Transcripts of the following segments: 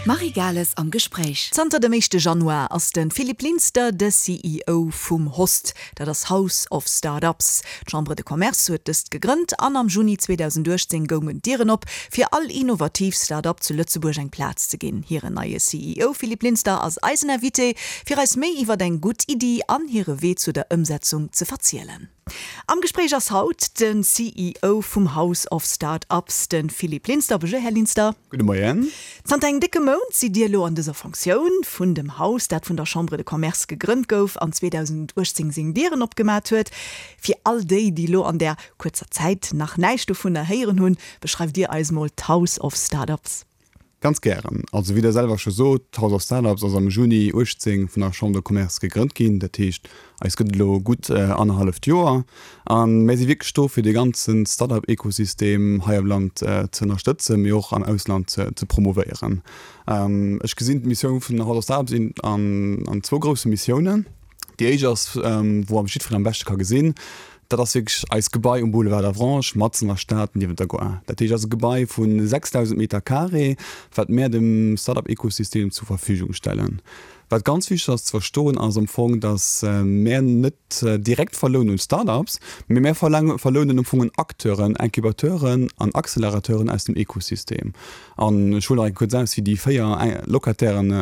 D'Marie Gales am Gespréich. Zanter dem éischte Januar ass de Philippe Linster de CEO vum HOST, dat ass House of Start-ups. D'Chambre de Commerce huet dëst gegrënnt an am Juni 2018 goungen d'Dieren op, fir all innovativ Start-up zu Lëtzebuerg eng Plaz ze ginn. Hiren neie CEO Philippe Linster ass eisen Invité, fir eis méi iwwer eng gutt Iddi an hire Wee zu der Ëmsetzung ze verzielen. Am Gespréich ass haut de CEO vum House of Start-ups, de Philippe Linster. Bonjour, Här Linster. Gudde Moien. Zanter engem décke Mount sidd Dir elo an dëser Fonctioun vun dem Haus, dat vun der Chambre de Commerce gegrënnt gouf an 2018 seng Dieren opgemat huet. Fir all déi, déi elo an där kuerzer Zäit nach näischt dovunner héieren hunn, beschreift Dir eis mol d'House of Start-ups. Ganz gären. Also wéi Der selwer scho sot, d'House of Startups ass am Juni 18 vun der Chambre de Commerce gegrënnt ginn. Dat heescht, eis gëtt et elo gutt annerhalleft Joer. A mär si wierklech do, fir dee ganze Startup-Ekosystem hei am Land ze ënnerstëtzen, mee och am Ausland ze promovéieren. Ech gesinn d'Missioun vun der House of Startups an zwou grousse Missiounen. Déi éischt ass, wou am jiddwereen am beschte ka gesinn, dat ass wierklech eist Gebai um Boulevard d'Avranches, matzen an der Stad, niewent der Gare. Dat heescht, ass e Gebai vu 6.000 Meter carré, wat mär dem Start-up-Ekosystem zur Verfügung stellen. Wat ganz wichteg ass ze verstoen, ass am Fong, datt mär net direkt verlounen un Start-ups, mee mär verlounen am Fong un Acteuren, Incubateuren an Accelerateuren aus dem Ekosystem. An ech huelen nach eng kuerz aus, fir déi 4 Locatairen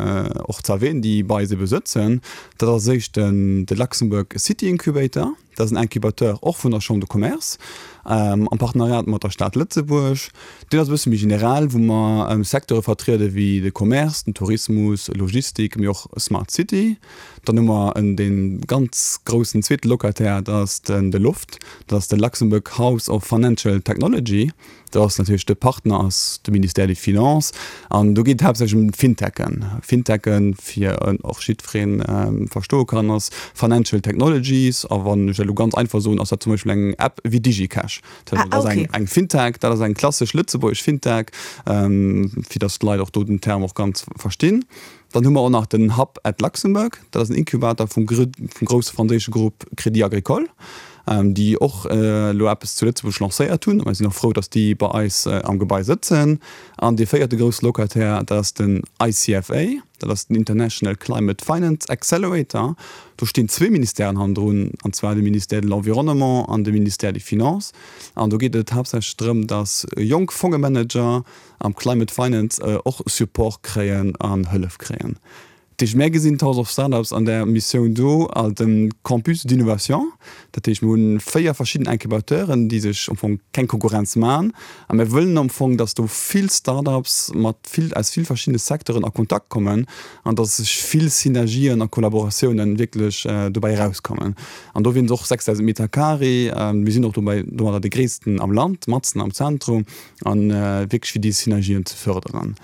och ze erwähnen, déi bei eis ebe sëtzen. Dat ass als éischt den de Luxembourg City Incubator. Dat ass en Incubateur och vun der Chambre de Commerce am Partenariat mat der Stad Lëtzebuerg. Deen ass e bësse méi general, wou mer Secteure vertriede wéi de Commerce, den Tourismus, Logistik, mee och Smart City. Dann hu mer en dee ganz groussen zweete Locataire, dat ass den de Loft, dat ass de Luxembourg House of Financial Technology. Do ass natierlech de Partner ass de Ministère des Finances an do geet et haaptsächlech ëm d'Fintechen. Fintechen, fir och jiddweree verstoe kann, ass Financial Technologies a wann ech dat elo ganz einfach soen, ass dat zum Beispill eng App wéi DigiCash. Dat ass eng Fintech, dat ass eng klassesch lëtzebuergesch Fintech, fir datt d'Leit och do den Term och ganz verstinn. Dann hu mer och nach den Hub at Luxembourg, dat ass en Incubator vum grousse franséische Grupp Crédit Agricole, déi och elo eppes zu Lëtzebuerg lancéiert hunn. A mir sinn och frou, datt déi bei eis am Gebai sëtzen. An dee véierte grousse Locataire, dat ass den ICFA, dat ass den International Climate Finance Accelerator. Do stinn zwee Ministèren hannendrun, an zwar de Ministère de l'Environnement an de Ministère des Finances. An do geet et haaptsächlech drëm, datt jonk Fongemanager, am Climate Finance och Support kréien an Hëllef kréien. Dat heescht, mär gesinn d'House of Startups an där Missioun do als e Campus d'innovation. Dat heescht, mir hunn 4 verschidden Incubateuren, déi sech am Fong keng Konkurrenz maachen. A mär wëllen am Fong, dass do vill Startups mat vill, aus vill verschiddene Secteuren a Kontakt kommen an dass sech vill Synergien a Kollaboratiounen wierklech dobäi erauskommen. An do wieren et och 6.000 Meter carré. Mir sinn och dobäi domadder de gréissten am Land, matzen am Zentrum. An wierklech fir déi Synergien ze förderen.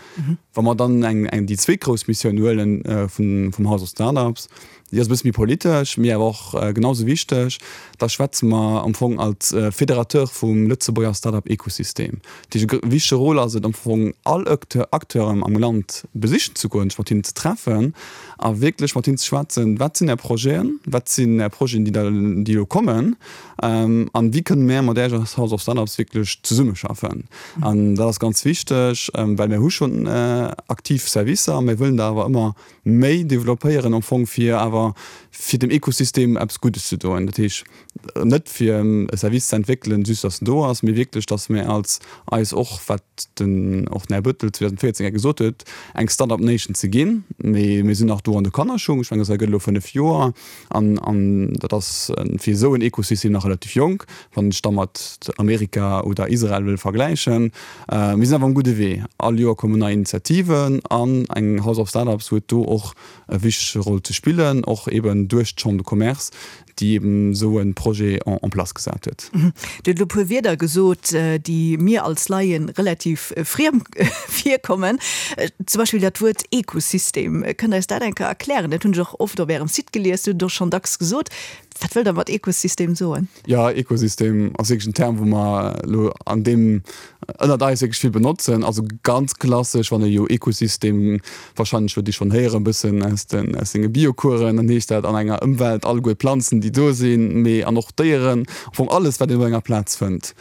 Wa mer dann eng, eng, déi zweet grouss Missioun huelen vun, vum House of Startups, déi ass e bësse méi politesch, mee awer och genau sou wichteg, da schwätze mer am Fong als Fédérateur vum Lëtzebuerger Startup-Ekosystem. Dat heescht, e wichtege Rôle ass et am Fong, all Acteur, Acteuren am Land besichen ze goen, sech mat hinnen ze treffen a wierklech mat hinnen ze schwätzen, Wat sinn Är Projeten? Wat sinn Är Projeten, déi der, déi elo kommen? An wéi kënne mär mat Iech als House of Startups wierklech zesummeschaffen? An dat ass ganz wichteg, well mär hu schonn aktiv Servicer, mär wëllen der awer ëmmer méi developpéieren am Fong, fir awer fir dem Ekosystem eppes Guddes ze doen. Dat heescht net fir e Service ze entwéckelen, just datt en do ass, mee wierklech, datt mär als eis och, wat den och den Här Bettel 2014 hei gesot huet, eng Startup Nation ze ginn. Mee mir sinn nach do an de Kannerschung. Ech mengen, dat gëtt elo 5 Joer. An, an dat ass fir esou en Ekosystem nach relativ jonk, wann ech da mat Amerika oder Israel wëll vergläichen. Mir sinn awer um gudde Wee. All Joer kommen nei Initiativen an eng House of Startups huet do och e wichtege Roll ze spillen, och eben duerch d'Chambre de Commerce, déi eben esou e Projet en en place gesat huet. Dir hutt elo e puer Wierder gesot, déi mir als Laien relativ friem virkommen. Zum Beispill dat Wuert Ekosystem. Kënnt Der eis dat eng Kéier erklären? Dat hunn ech och oft op Ärem Site gelies, Dir hutt et och schonn dacks gesot. Wat wëllt Der mat Ekosystem soen? Jo, Ekosystem ass wierklech en Term, wou mer elo an deem ënnert eis wierklech vill benotzen. Also ganz klassesch, wann ee jo Ekosystem, warscheinlech huet Dir schonn héieren, e bëssen aus den, aus senge Biocoursen, dann heescht dat an enger Ëmwelt alleguer d'Planzen, déi do sinn, mee an och d'Déieren, am Fong alles, wat een op enger Plaz fënnt.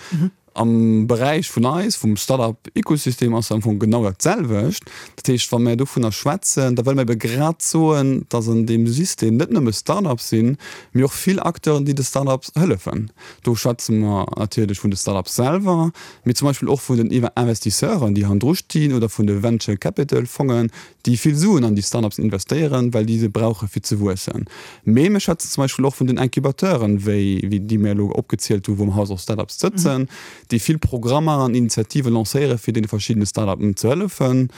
Am Beräich vun eis, vum Start-up-Ecosystem ass am Fong genau dat selwecht. Dat heescht, wa mir dovunner schwätzen, da wëlle mir ebe grad soen, dass an deem System net nëmme Start-ups sinn, mee och vill Acteuren, déi de Start-ups hëllefen. Do schwätze mer natierlech vun de Start-ups selwer, mee zum Beispill och vun den Investisseuren, déi hannendru stinn, oder vun de Venture Capital Fongen, déi vill Suen an déi Start-ups investéieren, well déi se brauche fir ze wuessen. Mee mir schwätzen zum Beispill och vun den Incubateuren, wéi déi mir elo opgezielt hu wou am House of Startups sëtzen, déi vill Programmer an Initiative lancéiere fir deene verschiddene Start-upen ze hëllefen.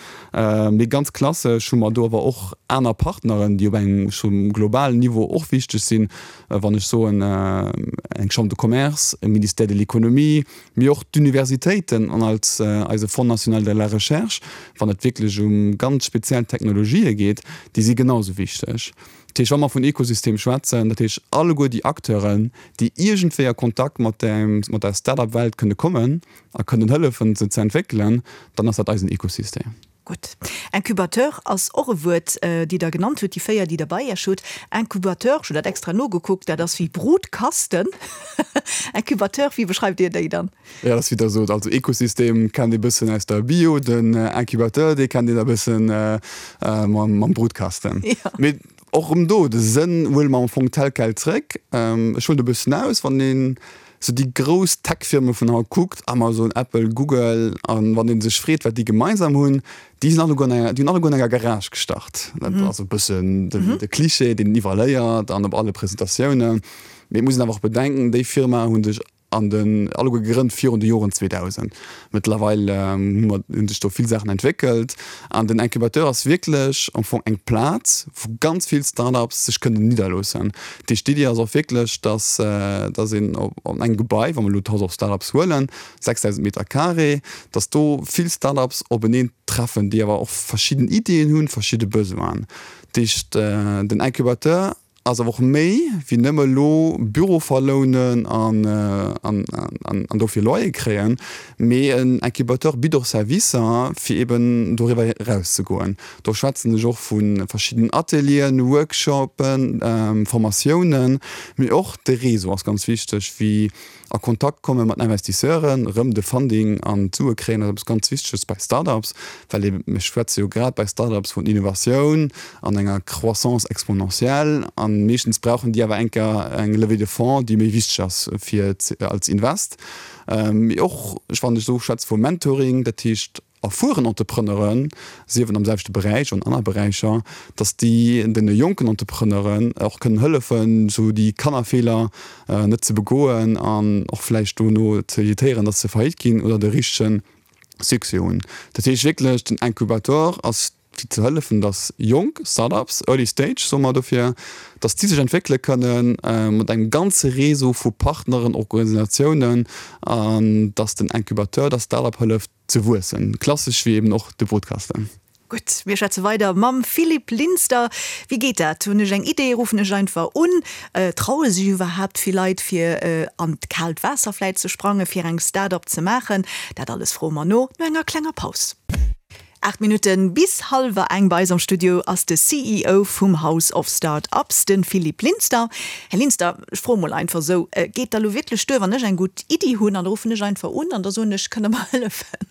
Mee ganz klassesch hu mer do awer och aner Partneren, déi op engem scho globalen Niveau och wichteg sinn, wann ech soen eng Chambre de Commerce, e Ministère de l'Économie, mee och d'Universitéiten an als eise Fonds national de la recherche, wann et wierklech um ganz speziell Technologië geet, déi si genau esou wichteg. Dat heescht, wa mer vun Ekosystem schwätzen, dat heescht alleguer déi Acteuren, déi iergendwéi a Kontakt mat der, mat der Start-up-Welt kënne kommen a kënnen hëllefen, se ze entwéckelen, dann ass dat eisen Ekosystem. Gutt. Incubateur ass och e Wuert, déi Der genannt hutt, déi 4, déi Der bei Iech hutt. Incubateur, ech hunn dat extra nogekuckt, dat ass wéi Brutkasten. Incubateur, wéi beschreift Dir déi dann? Jo, dat ass wéi Der sot. Also Ekosystem kennt ee bëssen aus der Bio, den Incubateur, dee kennt een e bëssen mam Brutkasten. Mee och erëm do, de Sënn huele mer am Fong tel quel zréck. Ech huelen e bëssen aus, wann een sou déi grouss Tech-Firme vun haut kuckt, Amazon, Apple, Google, a wann ee sech freet, wat déi gemeinsam hunn, déi sinn alleguer an enger, déi hunn alleguer an enger Garage gestart. Dat ass e bëssen den, de Cliché, deen een iwwerall héiert an op alle Presentatiounen. Mee et muss een awer och bedenken, déi Firmae hu sech an den, alleguer gegrënnt virun de Joren 2000. Mëttlerweil hu mer, hu sech do vill Saachen entwéckelt an den Incubateur ass wierklech am Fong eng Plaz, wou ganz vill Start-ups sech kënnen nidderloossen. Dat heescht, d'Iddi ass och wierklech, dass, dass een op engem Gebai, wa mer elo d'House of Start-ups huelen, 6.000 Meter carré, dass do vill Start-ups openeen treffen, déi awer och verschidden Iddien hunn, verschidde Besoinen. Dat heescht, den Incubateur Ass awer och méi wéi nëmme elo Büro verlounen an dofir Loyer kréien, mee en Incubateur bitt och Servicer fir eben doriwwer eraus ze goen. Do schwätzen ech och vu verschiddenen Atelieren, Workshopen, Formatiounen, mee och de Réseau ass ganz wichteg, wéi A Kontakt komme mat Investisseuren, erëm de Funding an d'Sue kréien, ass eppes ganz Wichteges bei Startups, well ee, mir schwätze jo grad bei Startups vun Innovatioun an enger Croissance exponentielle a meeschtens brauchen déi awer enker eng Levée de fonds, déi méi wichteg ass fir als Invest. Mee och, wann ech esou schwätze vu Mentoring, dat heescht, erfueren Entrepreneuren, sief et am selwechte Beräich oder an aner Beräicher, dass déi deene jonken Entrepreneuren och kënnen hëllefen, esou déi Kannerfeeler net ze begoen an och vläicht dono ze evitéieren, dass se faillite ginn oder de richtege Succès hunn. Dat heescht wierklech, den Incubateur ass fir ze hëllefen, dass jonk Start-ups, Early Stage soe mer dofir, dass déi sech entwéckele kënnen mat engem ganze Réseau vu Partneren, Organisatiounen an dass den Incubateur der Start-up hëlleft, Ze wuessen, klassesch wéi eben och de Brutkasten. Gutt, mir schwätze weider mam Philippe Linster. Wéi geet dat? Hunn ech eng Idee, ruffen ech einfach un? Traue sech iwwerhaapt vill Leit fir an d'kaalt Waasser vläit ze sprangen, fir eng Start-up ze maachen? Dat alles froe mer no, no enger klenger Paus. 8 Minutte bis hallwer eng. Bei eis am Studio ass de CEO vum House of Start-ups, de Philippe Linster. Här Linster, ech froe mol einfach esou, Geet da lo wierklech duer, wann ech eng gutt Iddi hunn an da ruffen ech einfach un an da soen ech, kënnt Der mer hëllefen?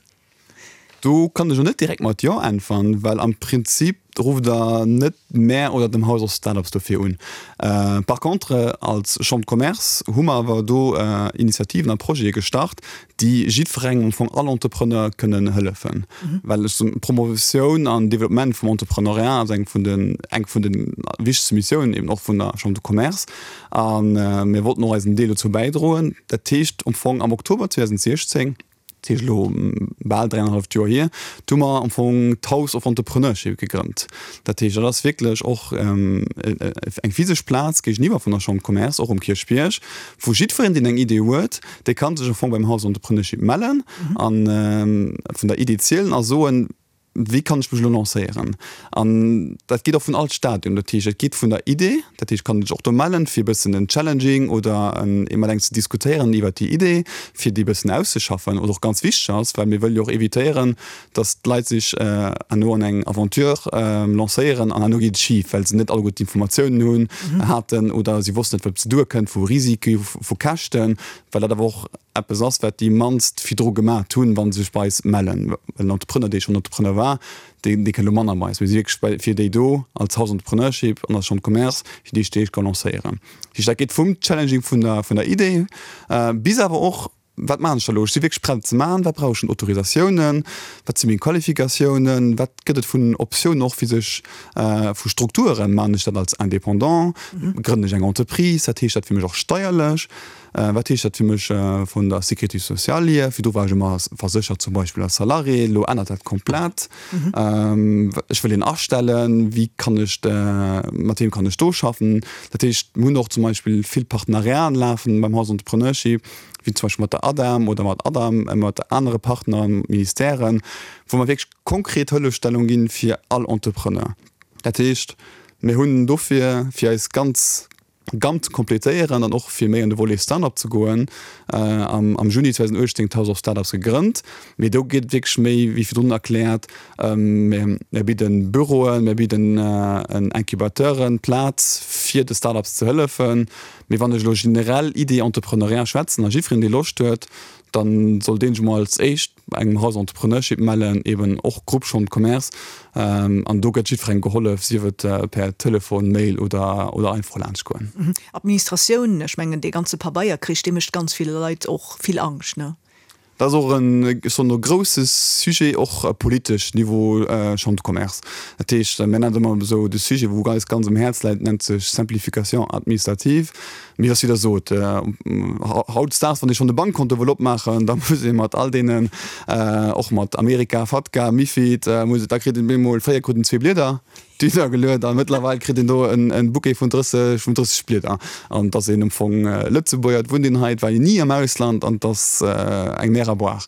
Do kann ech elo net direkt mat Jo äntweren, well am Prinzip rufft Der net mär oder dem House of Start-ups dofir un. Par contre, als Chambre de Commerce hu mer awer do Initiativen a Projete gestart, déi jiddwerengem, am Fong all Entrepreneur kënnen hëllefen. Well ech soen, d'Promotioun an Développement vum Entrepreneuriat ass eng vun den, eng vun de wichtegste Missiounen eben och vun der Chambre de Commerce. A mir wollten och eisen Deel dozou bäidroen. Dat heescht am Fong am Oktober 2016, dat heescht elo bal dräianenhalleft Joer hier, do hu mer am Fong d'House of Entrepreneurship gegrënnt. Dat heescht, dat ass wierklech och eng physesch Plaz géigeniwwer vun der Chambre de Commerce, och um Kierchbierg, wou jiddwereen, deen eng Idee huet, dee ka sech am Fong beim House of Entrepreneurship mellen a vun der Idee zielen a soen. Wéi kann ech mech elo lancéieren? An dat geet och vun all Stadium. Dat heescht, et geet vun der Idee, dat heescht, kann sech och do mellen, fir e bëssen en Challenging oder en mat engem ze diskutéieren iwwert déi Idee, fir déi e bëssen auszeschaffen. Wat och ganz wichteg ass, well mir wëlle jo och évitéieren, dass d'Leit sech herno an eng Aventure lancéieren an herno geet et schif, well se net alleguer d'Informatiounen hunn, haten oder si wossten net, wat op se duerkënnt vu Risike, vu Käschten, well dat awer och eppes ass, wat déi mannst virdru gemat hunn, wa se sech bei eis mellen. Well en Entrepreneur, dee schonn Entrepreneur war, dee kënnt elo manner bei eis. Mir si wierklech bei, fir déi do als House Entrepreneurship an als Chambre de Commerce, fir déi déi ka lancéieren. Dat heescht, dat geet vum Challenging vun der, vun der Idee bis awer och, Wat maachen ech da elo? Ech si wierklech prett et ze maachen. Wat brauch ech un Autorisatiounen? Wat si meng Qualifikatiounen? Wat gëtt et vun Optiounen och fir sech vu Strukturen? Maachen ech dat als Indépendant? Grënnen ech eng Entreprise? Wat heescht dat fir mech och steierlech? Wat heescht dat fir mech vun der Sécurité sociale hier? Virdru war ech ëmmer verséchert, zum Beispill als Salarié, elo ännert dat komplett. Ech wëll een astellen, wéi kann ech, mat weem kann ech do schaffen? Dat heescht, mir hunn och zum Beispill vill Partenariaten lafen beim House Entrepreneurship, wéi zum Beispill mat der ADEM oder mat ADAM, mat anere Partner, Ministèren, wou mer wierklech konkret Hëllefstellung ginn fir all Entrepreneur. Dat heescht, mir hunn dofir, fir eis ganz Gamme ze completéieren an och fir méi an de Volet Start-up ze goen, am Juni 2018 d'House of Startups gegrënnt. Mee do geet et wierklech méi, wéi virdrun erkläert, mir bidden Büroen, mir bidden Incubateuren Plaz fir de Start-ups ze hëllefen. Mee wann ech elo generell Idee Entrepreneuriat schwätzen a jiddwereen dee Loscht huet, da soll dee sech emol als éischt bei engem House Entrepreneurship mellen, eben och Groupe Chambre de Commerce, an do gëtt jiddwerengem gehollef, sief et per Telefon, Mail oder oder einfach laanscht goen. Administratioun, ech mengen dee ganze Pabeierkrich, dee mécht ganz ville Leit och vill Angscht, ne? Dat ass och en, ech soen elo, grousse Sujet, och politesch, Niveau Chambre de Commerce. Dat heescht, mir nennen et ëmmer esou, de Sujet wou eis ganz um Häerz läit, nennt sech Simplification administrative. Mee ass wéi Der sot, hautdesdaags, wann ee schonn e Bankkonto wëll opmaachen, da muss ee mat all deenen, och mat Amerika, Fatca, Mifid, muss, da kritt een bemol, fréier krut een zwee Blieder duergeluet a mëttlerweil kritt een do en Bouquet vun 30, vun 30 Blieder. An et ass een am Fong Lëtzebuerger, et wunnt een hei, et war een ni am Ausland an et ass eng Mer à boire.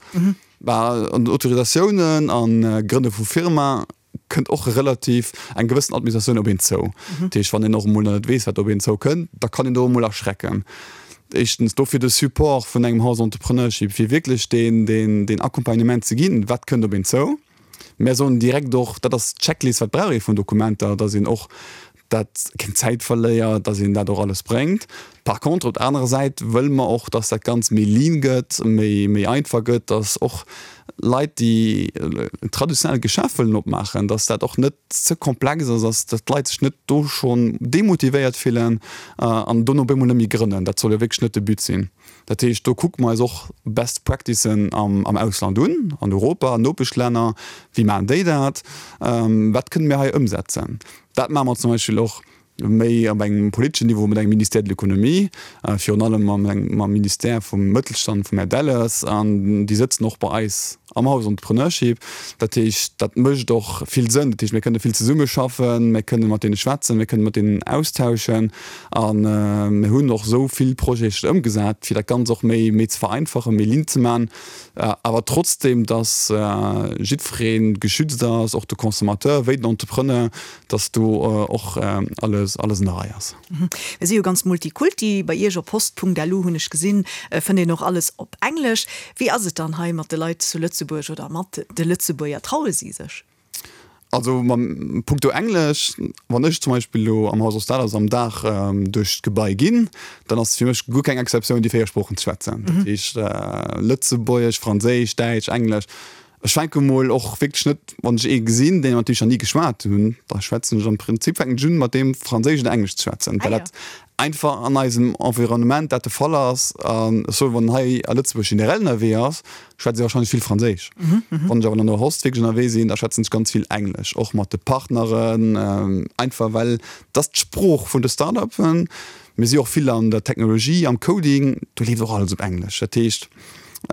Bah, an den Autorisatiounen a Grënne vu Firma kënnt och relativ eng gewëssen Administratioun op een zou. Dat heescht, wann een och emol net weess, wat op een zou kënnt, da kann een do emol erschrecken. Éischtens dofir de Support vun engem House Entrepreneurship, fir wierklech deen, deen, deen Accompagnement ze ginn, wat kënnt op een zou. Mär soen direkt och, dat ass d'Checklist, wat brauch ee vun Dokumenter, dass een och dat keng Zäit verléiert, dass een dat och alles bréngt. Par contre, op der anerer Säit wëlle mer och, dass dat Ganzt méi lean gëtt, méi, méi einfach gëtt, dass och Leit, déi en traditionellt Geschäft wëllen opmaachen, dass dat och net ze komplex ass, dass, dass d'Leit sech net do schonn demotivéiert fillen an dono op eemol net méi grënnen. Dat soll jo wierklech net de But sinn. Dat heescht, do kucke mer eis och Best Practicen am, am Ausland un, an Europa, an Nopeschlänner, wéi maachen déi dat, wat kënne mir hei ëmsetzen. Dat maache mer zum Beispill och méi op engem politeschen Niveau mat engem Ministère de l'économie, virun allem mam Ministère vum Mëttelstand, vum Här Delles, an déi sëtzen och bei eis am House Entrepreneurship. Dat heescht, dat mécht och vill Sënn. Dat heescht, mir kënne vill zesummeschaffen, mir kënne mat deene schwätzen, mir kënne mat deenen austauschen a mir hunn och esou vill Projete ëmgesat, fir dat Ganzt och méi ze vereinfachen, méi lean ze maachen. Awer trotzdem, dass jiddweree geschützt ass, och de Consommateur wéi den Entrepreneur, dass do och alles alles an der Rei ass. Mir si jo ganz Multikulti. Bei Iech op post.lu hunn ech gesinn, fënnt een och alles op Englesch. Wéi ass et dann hei mat de Leit zu Lëtzebuerg oder mat de Lëtzebuerger? Traue si sech? Also mam punkto Englesch, wann ech zum Beispill elo am Haus Ostaders am Dag duerch d'Gebai ginn, dann ass fir mech guer keng Exceptioun déi 4 Sproochen ze schwätzen. Dat heescht Lëtzebuergesch, Franséisch, Däitsch, Englesch. Ech fänke mol och wierklech net, wann ech ee gesinn, deen mat deem ech nach ni geschwat hunn, da schwätzen ech am Prinzip fänken ech un mat deem Franséisch oder Englesch ze schwätzen, well dat einfach an eisem Environnement dat de Fall ass. An ech soen, wann en hei a Lëtzebuerg generell ënnerwee ass, schwätze ech warscheinlech vill Franséisch. Wann ech awer an der Host wierklech ënnerwee sinn, da schwätzen ech ganz vill Englesch, och mat de Partneren, einfach well dat ass d'Sprooch vun de Start-upen. Mir si och vill an der Technologie, am Coding, do leeft och alles op Englesch. Dat heescht,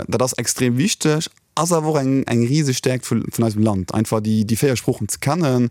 dat ass extrem wichteg, ass awer och eng eng riseg Stäerkt vun eisem Land, einfach déi 4 Sproochen ze kennen.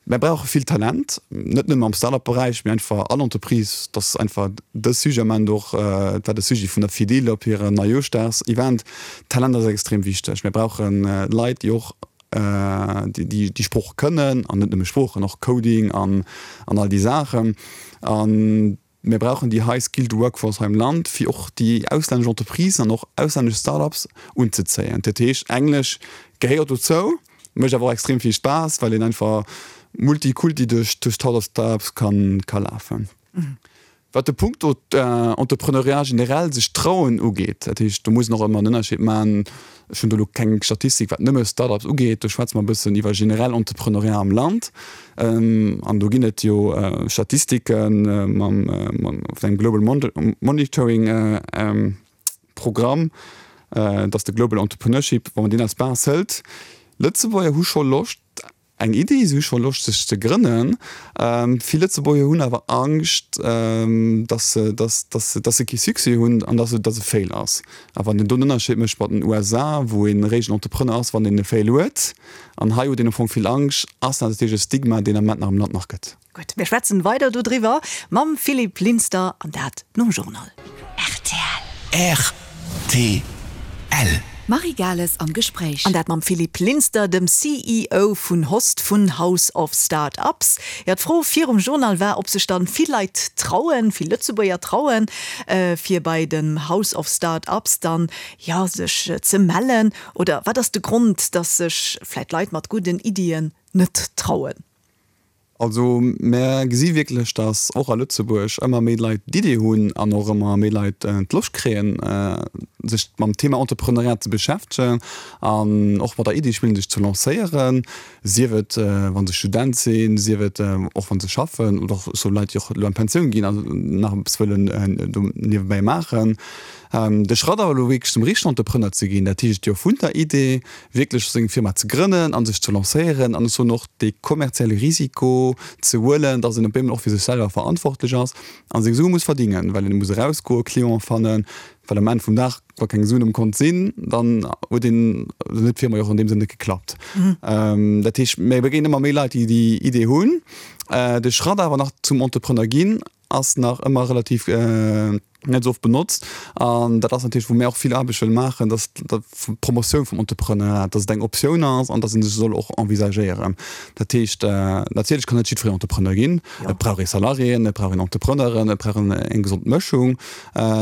Mär brauche vill Talent, net nëmme am Start-up-Beräich, mee einfach all Entreprise. Dat ass einfach de Sujet am Ament och, et war de Sujet vun der Fedil op hirem Neijoerschdags-Event. Talent ass extrem wichteg. Mir brauche Leit, déi och. déi déi Sprooch kënnen an net nëmme Sproochen, och Coding an an all déi Saachen. An mir brauchen déi high skilled workforce hei am Land, fir och déi auslännesch Entreprisen an och auslännesch Start-ups unzezéien. Dat heescht, Englesch gehéiert dozou, mécht awer och extrem vill Spaass, well een einfach multikulti duerch d'House of Startups kann ka lafen. Wat de Punkto Entrepreneuriat generell, sech trauen ugeet, dat heescht, do muss een och ëmmer en Ënnerscheed maachen, ech hunn do elo keng Statistik wat nëmme Start-ups ugeet, do schwätze mer e bëssen iwwer generell Entrepreneuriat am Land an do ginn et jo Statistike mam vun engem Global Monitoring Programm, dat ass de Global Entrepreneurship, wa mer deen als Base hëlt, Lëtzebuerger hu scho Loscht, Eng Iddi, si hu scho Loscht sech ze grënnen. Vill Lëtzebuerger hunn awer Angscht, dass se, dass, dass se, dass se kee Succès hunn an dass et, dass e Fail ass. A wann een do en Ënnerscheed mécht mat den USA, wou een eréischt en Entrepreneur ass, wann een e Fail huet, an hei huet een am Fong vill Angscht, ass dat natierlech e Stigma, deen am Moment nach am Land nach gëtt. Gutt, mir schwätzen weider dodriwwer mam Philippe Linster an dat nom Journal. Rtl. Rtl. D'Marie Gales am Gespréich. An dat mam Philippe Linster, dem CEO vun Host vun House of Start-ups. Jo, d'Fro virum Journal war, ob sech dann vill Leit trauen, vill Lëtzebuerger trauen, fir bei dem House of Start-ups dann, jo, sech ze mellen. Oder wat ass de Grond, dass sech vläit Leit mat gudden Iddien net trauen? Also mär gesi wierklech, datt och a Lëtzebuerg ëmmer méi Leit d'Idee hunn an och ëmmer méi Leit d'Loscht kréien, sech mam Thema Entrepreneuriat ze beschäftegen an och mat der Idee spillen, sech ze lancéieren, sief et wa se Student sinn, sief et och wa se schaffen oder och sou Leit, déi och elo an d'Pensioun ginn an nach eppes wëllen do niewebäi maachen. De Schratt awer elo wierklech zum richtegen Entrepreneur ze ginn, dat heescht jo vun der Idee wierklech seng Firma ze grënnen a sech ze lancéieren an ech soen och dee kommerzielle Risiko ze huelen, dass een op eemol och fir sech selwer verantwortlech ass a seng Sue muss verdingen, well een muss erausgoen, Clienten fannen, well um Enn vum Dag, wa keng Suen um Kont sinn, dann huet een, dann huet d'Firma jo och an deem Sënn net geklappt. Dat heescht, mir begéinen ëmmer méi Leit, déi déi Idee hunn. De Schratt awer nach zum Entrepreneur ginn ass nach ëmmer relativ net esou oft benotzt an dat ass natierlech wou mir och vill Aarbecht wëlle maachen, dass d'Promotioun vum Entrepreneuriat, dass et eng Optioun ass an dass ee sech soll och envisagéieren. Dat heescht, natierlech kann net jiddwereen Entrepreneur ginn, et brauch ee Salariéen, et brauch een Entrepreneuren, et brauch een eng gesond Mëschung.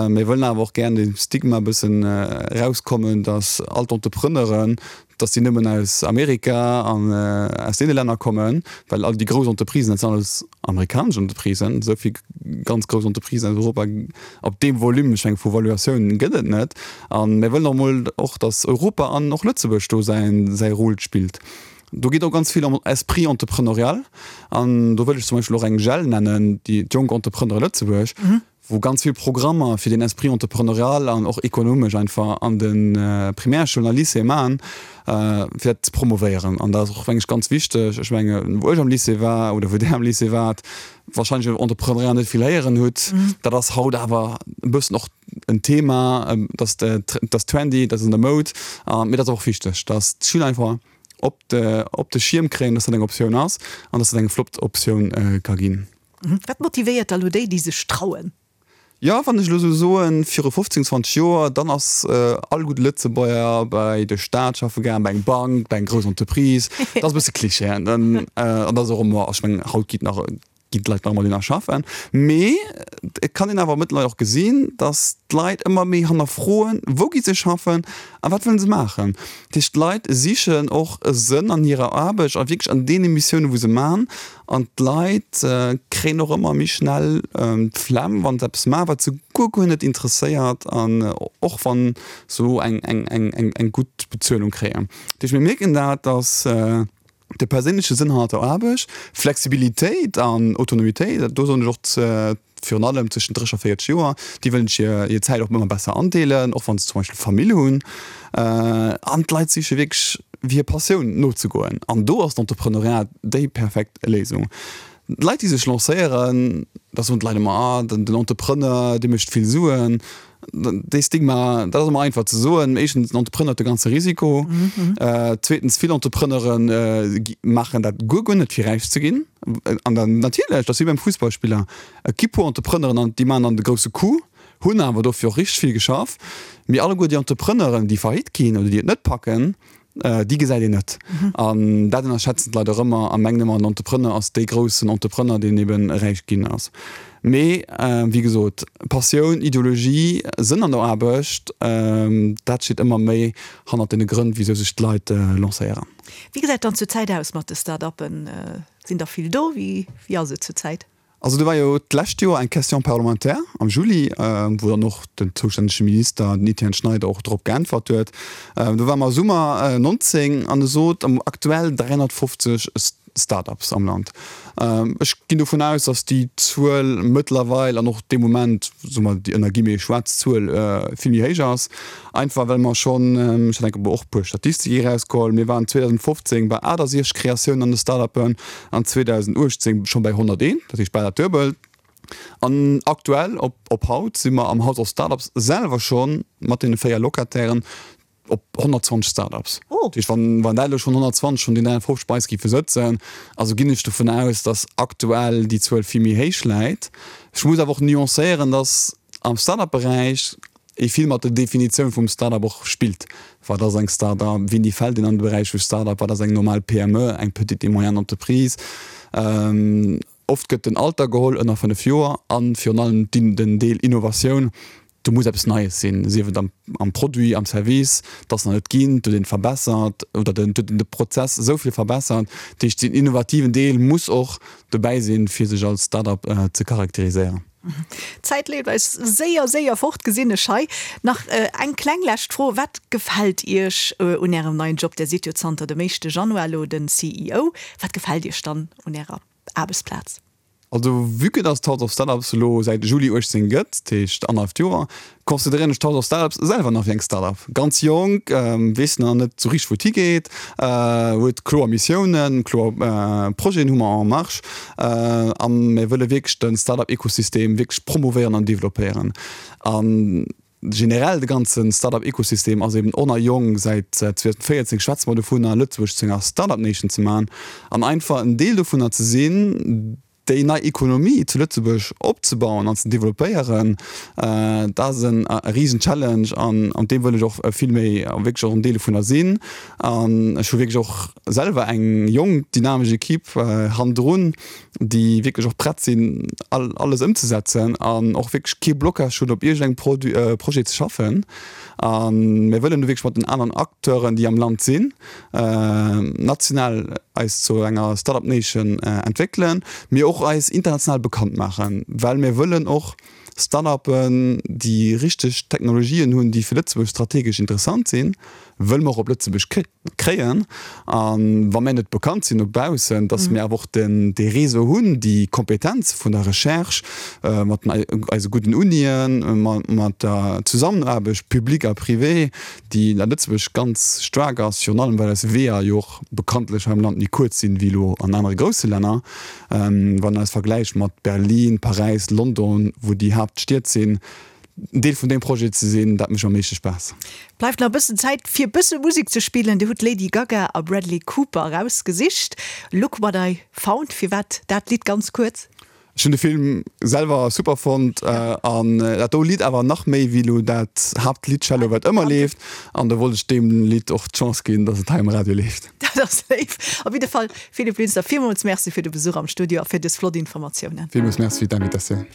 Mir wëllen awer och gären dem Stigma e bëssen erauskommen, dass all d'Entrepreneuren dass déi nëmmen aus Amerika an aus deene Länner kommen, well all déi grouss Entreprisen, dat sinn alles amerikanesch Entreprisen, esou vill ganz grouss Entreprisen aus Europa op deem Volume, ech menge vu Valuatioun gëtt et net. A mir wëllen och emol och, dass Europa an och Lëtzebuerg do säin, säi Rôle spillt. Do geet och ganz vill ëm Esprit entrepreneurial an do wëll ech zum Beispill och eng JEL nennen, déi d'Jonk Entrepreneure Lëtzebuerg, wou ganz vill Programmer fir den Esprit entrepreneurial an och ekonomesch einfach an de Primärschoulen a Lycéeë maachen, fir dat ze promovéieren. An dat ass och, meng ech, ganz wichteg. Ech menge wou ech am Lycée war oder wou Där am Lycée waart, wahrscheinlech iwwer Entrepreneuriat net vill héieren hutt. Dat ass haut awer e bëssen och en Thema, dat ass trendy, dat ass an der Moud. Mee dat ass och wichteg, dass d'Schüler einfach op de, op de Schierm kréien, dass dat eng Optioun ass an dass dat eng flott Optioun ka ginn. Wat motivéiert da lo déi, déi sech trauen? Jo, wann ech elo esou soen, viru 15, 20 Joer, dann ass all gudde Lëtzebuerger bei de Staat schaffe gaangen, bei eng Bank, bei eng grouss Entreprise. Dat ass e bësse Cliché, hein. An dat ass och ëmmer, ech mengen, haut geet nach, ginn d'Leit nach ëmmer dohinner schaffen. Mee et kann een awer mëttlerweil och gesinn, datt d'Leit ëmmer méi hannerfroen, wou gi se schaffen a wat wëllen se maachen. Dat heescht, d'Leit sichen och e Sënn an hirer Aarbecht a wierklech an deene Missiounen, wou se maachen. An d'Leit kréien och ëmmer méi schnell d'Flemm, wa se eppes maachen, wat se guer, guer net interesséiert an och wa se elo eng gutt Bezuelung kréien. Dat heescht, mir mierken dat, datt de perséinleche Sënn hannert der Aarbecht, Flexibilitéit an Autonomitéit, do soen ech och virun allem zwëschen 30 a 40 Joer, déi wëllen sech hir Zäit och ëmmer besser andeelen, och wa se zum Beispill Famill hunn. An d'Leit siche wierklech hir Passioun nozegoen. An do ass d'Entrepreneuriat déi perfekt Léisung. D'Leit, déi sech lancéieren, da soen d'Leit ëmmer, ah, den Entrepreneur, dee mécht vill Suen. Dee Stigma, dat ass ëmmer einfach ze soen. Éischtens, den Entrepreneur huet de ganze Risiko. Zweetens, vill Entrepreneure maachen dat guer, guer net, fir räich ze ginn. An dann natierlech, dat ass wéi beim Fussballspiller, et gi puer Entrepreneuren an déi maachen dann de grousse Coup, hunn awer dofir och richteg vill geschafft. Mee alleguer déi Entrepreneuren, déi faillite ginn oder déi et net packen. Déi gesäit een net. An dat ënnerschätzen d'Leit och ëmmer a mengen ëmmer, en Entrepreneur ass dee groussen Entrepreneur, deen eben räich ginn ass. Mee wéi gesot, Passioun, Ideologie, Sënn an der Aarbecht, dat steet ëmmer méi hannert deene Grënn, wisou sech d'Leit lancéieren. Wéi gesäit dann zur Zäit aus mat de Start-uppen? Sinn der vill do? Wéi ass et zur Zäit? Also do war jo d'lescht Joer eng Question parlementaire am Juli, wou dann och den zoustännege Minister, den Etienne Schneider, och drop geäntwert huet. Do ware mer Summer 19 an e sot, aktuell 350 Start-ups am Land. Ech ginn dovun aus, datt déi Zuel mëttlerweil an och dee Moment, soe mer déi ënner Guillemets schwaarz Zuel, vill méi héich ass. Einfach well mer schonn, ech hat enke och e puer Statistike erausgeholl, mir waren 2015 bei 68 Kreatiounen an de Start-upen an 2018 scho bei 101, dat heescht bal dat Duebelt. An aktuell, op op haut, si mer am House of Startups selwer scho mat deene 4 Locatairen op 120 Start-ups. Dat heescht, wann wann dat elo schonn 120 vun den 350 bei eis géife sëtzen, also ginn ech dovun aus, datt aktuell déi Zuel vill méi héich läit. Ech muss awer och nuancéieren, datt am Start-up-Beräich ee vill mat der Definitioun vum Start-up och spillt. Wat ass eng Start-up? Wéini fält een an de Beräich vu Start-up? Wat ass eng normal PME, eng Petite et moyenne entreprise? Oft gëtt den Alter geholl, ënner 5 Joer, a virun allem den Deel Innovatioun. Do muss eppes Neies sinn, sief et am Produit, am Service, dat nach net ginn, et huet een verbessert oder et huet een de Prozess esou vill verbessert. Dat heescht, den innovativen Deel muss och dobäi sinn, fir sech als Start-up ze charakteriséieren. D'Zäit leeft eis séier, séier fort, gesinn ech hei. Nach eng kleng lescht Fro, Wat gefält Iech un Ärem neien Job? Där sidd jo zanter dem éischte Januar elo den CEO. Wat gefält Iech dann un Ärer Aarbechtsplaz? Also vue que dass d'House of Startups elo säit Juli 18 gëtt, dat heescht annerhalleft Joer, consideréieren ech d'House of Startups selwer nach wéi eng Startup. Ganz jonk, weess nach net sou richteg wou et higeet, huet kloer Missiounen, kloer Projeten hu mer en marche a mir wëlle wierklech de Startup-Ekosystem wierklech promouvéieren an developpéieren. A generell de ganze Startup-Ekosystem ass eben och nach jonk, säit 2014 schwätze mer dovunner Lëtzebuerg zu enger Startup Nation ze maachen an einfach en Deel dovunner ze sinn, Déi nei Ekonomie zu Lëtzebuerg opzebauen an ze developpéieren, dat ass e risen Challenge an an deem wëll ech och vill méi wierklech och en Deel dovunner sinn. An ech hu wierklech och selwer eng jonk, dynamesch Equipe hannendrun, déi wierklech och prett sinn, alles ëmzesetzen an och wierklech kee Blocage hunn, op iergendengem Produit, Projet ze schaffen. A mir wëllen do wierklech mat den aneren Acteuren, déi am Land sinn, national eis zu enger Start-up Nation entwéckelen, mee och eis international bekannt maachen, well mir wëllen och Start-upen, déi richteg Technologien hunn, déi fir Lëtzebuerg strategesch interessant sinn, wëlle mer och op Lëtzebuerg kréien. A wa mir net bekannt sinn no baussen, datt mir awer och den dee Réseau hunn, déi Kompetenz vun der Recherche mat eise gudden Unien, mat der Zusammenaarbecht public a privé, déi a Lëtzebuerg ganz staark ass, virun allem well eis Weeër jo och bekanntlech hei am Land méi kuerz sinn wéi elo an anere grousse Länner. Wann een eis vergläicht mat Berlin, Paräis, London, wou déi Haaptstied sinn, en Deel vun deem Projet ze sinn, dat mécht am meeschte Spaass. Bleift nach e bëssen Zäit fir e bësse Musek ze spillen. Dir hutt Lady Gaga a Bradley Cooper erausgesicht, Look What I Found. Firwat dat Lidd ganz kuerz? Ech hunn de Film selwer super fonnt an dat do Lidd awer nach méi wéi lo dat Haaptlidd Shallow wat ëmmer leeft an do wollt ech deem Lidd och d'Chance ginn, dass et hei um Radio leeft. Dat ass léif. Op jidde Fall, Philippe Linster, villmools Merci fir de Besuch am Studio a fir dës flott Informatiounen. Villmools Merci fir d'Invitatioun.